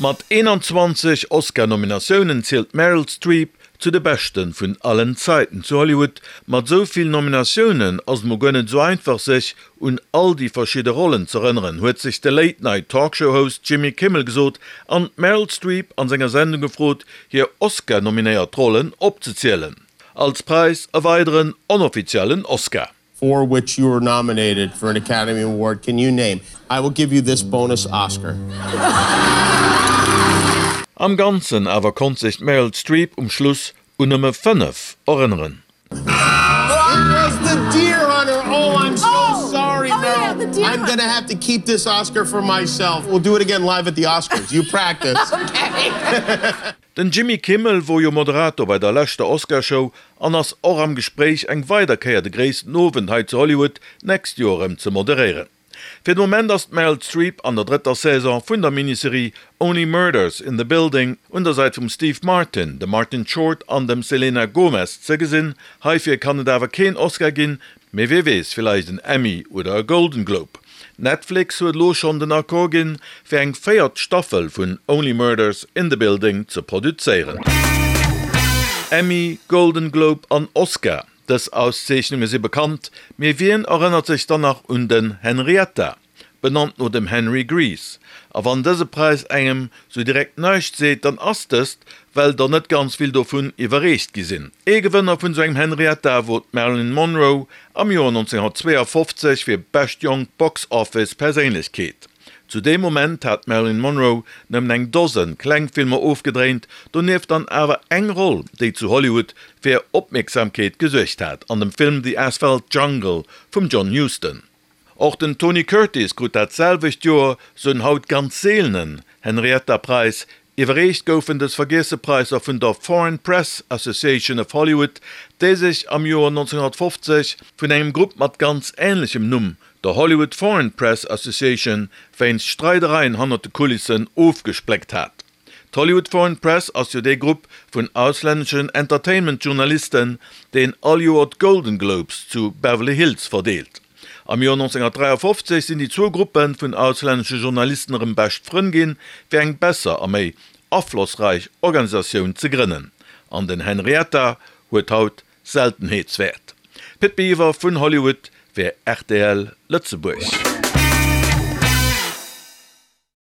Mat 21 Oscar-Nominatiounen zielt d'Meryl Streep zu de Beschte vun allen Zäiten zu Hollywood. Mat esou vill Nominatiounen ass et mol guer net esou einfach sech un all déi verschidde Rollen z'erënneren, huet sech de Late-Night-Talkshow-Host Jimmy Kimmel gesot an d'Meryl Streep an senger Sendung gefrot, hir Oscar-nominéiert Rollen opzezielen. Als Präis e weideren onoffiziellen Oscar. For which you were nominated for an Academy Award can you name? I will give you this bonus Oscar. Am Ganzen awer konnt sech d'Meryl Streep um Schluss un nëmme 5 erënneren. It was the Deer Hunter! Oh, I'm so sorry, Meryl. I'm gonna have to keep this Oscar for myself. We'll do it again live at the Oscars. You practice. Den Jimmy Kimmel wor jo Moderator bei der leschter Oscarshow an ass och am Gespréich eng weider Kéier de gréissten Owend hei zu Hollywood d'nächst Joer erëm ze moderéieren. Fir de Moment ass d'Meryl Streep an der drëtter Saison vun der Miniserie Only Murders in the Building un der Säit vum Steve Martin, dem Martin Short an dem Selena Gomez ze gesinn. Heifir kann et awer keen Oscar ginn, Mee wee weess, villäicht en Emmy oder e Golden Globe. Netflix huet elo schonn den Accord ginn, fir eng véiert Staffel vun Only Murders in the Building ze produzéieren. Emmy, Golden Globe an Oscar, dës Auszeechnunge si bekannt, mee wien erënnert sech dann nach un den Henrietta? benannt no dem Henry Gries. A wann dëse Präis engem sou direkt näischt seet, dann ass dëst, well der net ganz vill dovun iwwerreecht gi sinn. Ee Gewënner vun sou engem Henrietta wor d'Marilyn Monroe am Joer 1952 fir Bescht jonk Box Office Perséinlechkeet. Zu deem Moment hat d'Marilyn Monroe nëmmen eng Dosen kleng Filmer ofgedréint, donieft dann awer eng Roll, déi zu Hollywood fir Opmierksamkeet gesuergt hat, an dem Film The Asphalt Jungle vum John Huston. Och den Tony Curtis krut dat selwecht Joer sou en haut ganz seelenen Henrietta-Präis. Iwwerreecht goufen dës vergiesse Präisser vun der Foreign Press Association of Hollywood, déi sech am Joer 1950 vun engem Grupp mat ganz änlechem Numm, der Hollywood Foreign Press Association, wéinst Streidereien hannert de Kulissen ofgespléckt hat. D'Hollywood Foreign Press ass jo dee Grupp vun auslänneschen Entertainment-Journalisten, deen all Joer d'Golden Globes zu Beverly Hills verdeelt. Am Joer 1953 sinn déi zwou Gruppe vun auslännesche Journalisten erëm bescht Frënn ginn, fir eng besser a méi aflossräich Organisatioun ze grënnen. An den Henrietta huet haut Seltenheetswäert. Pit Biwer vun Hollywood fir rtl Lëtzebuerg.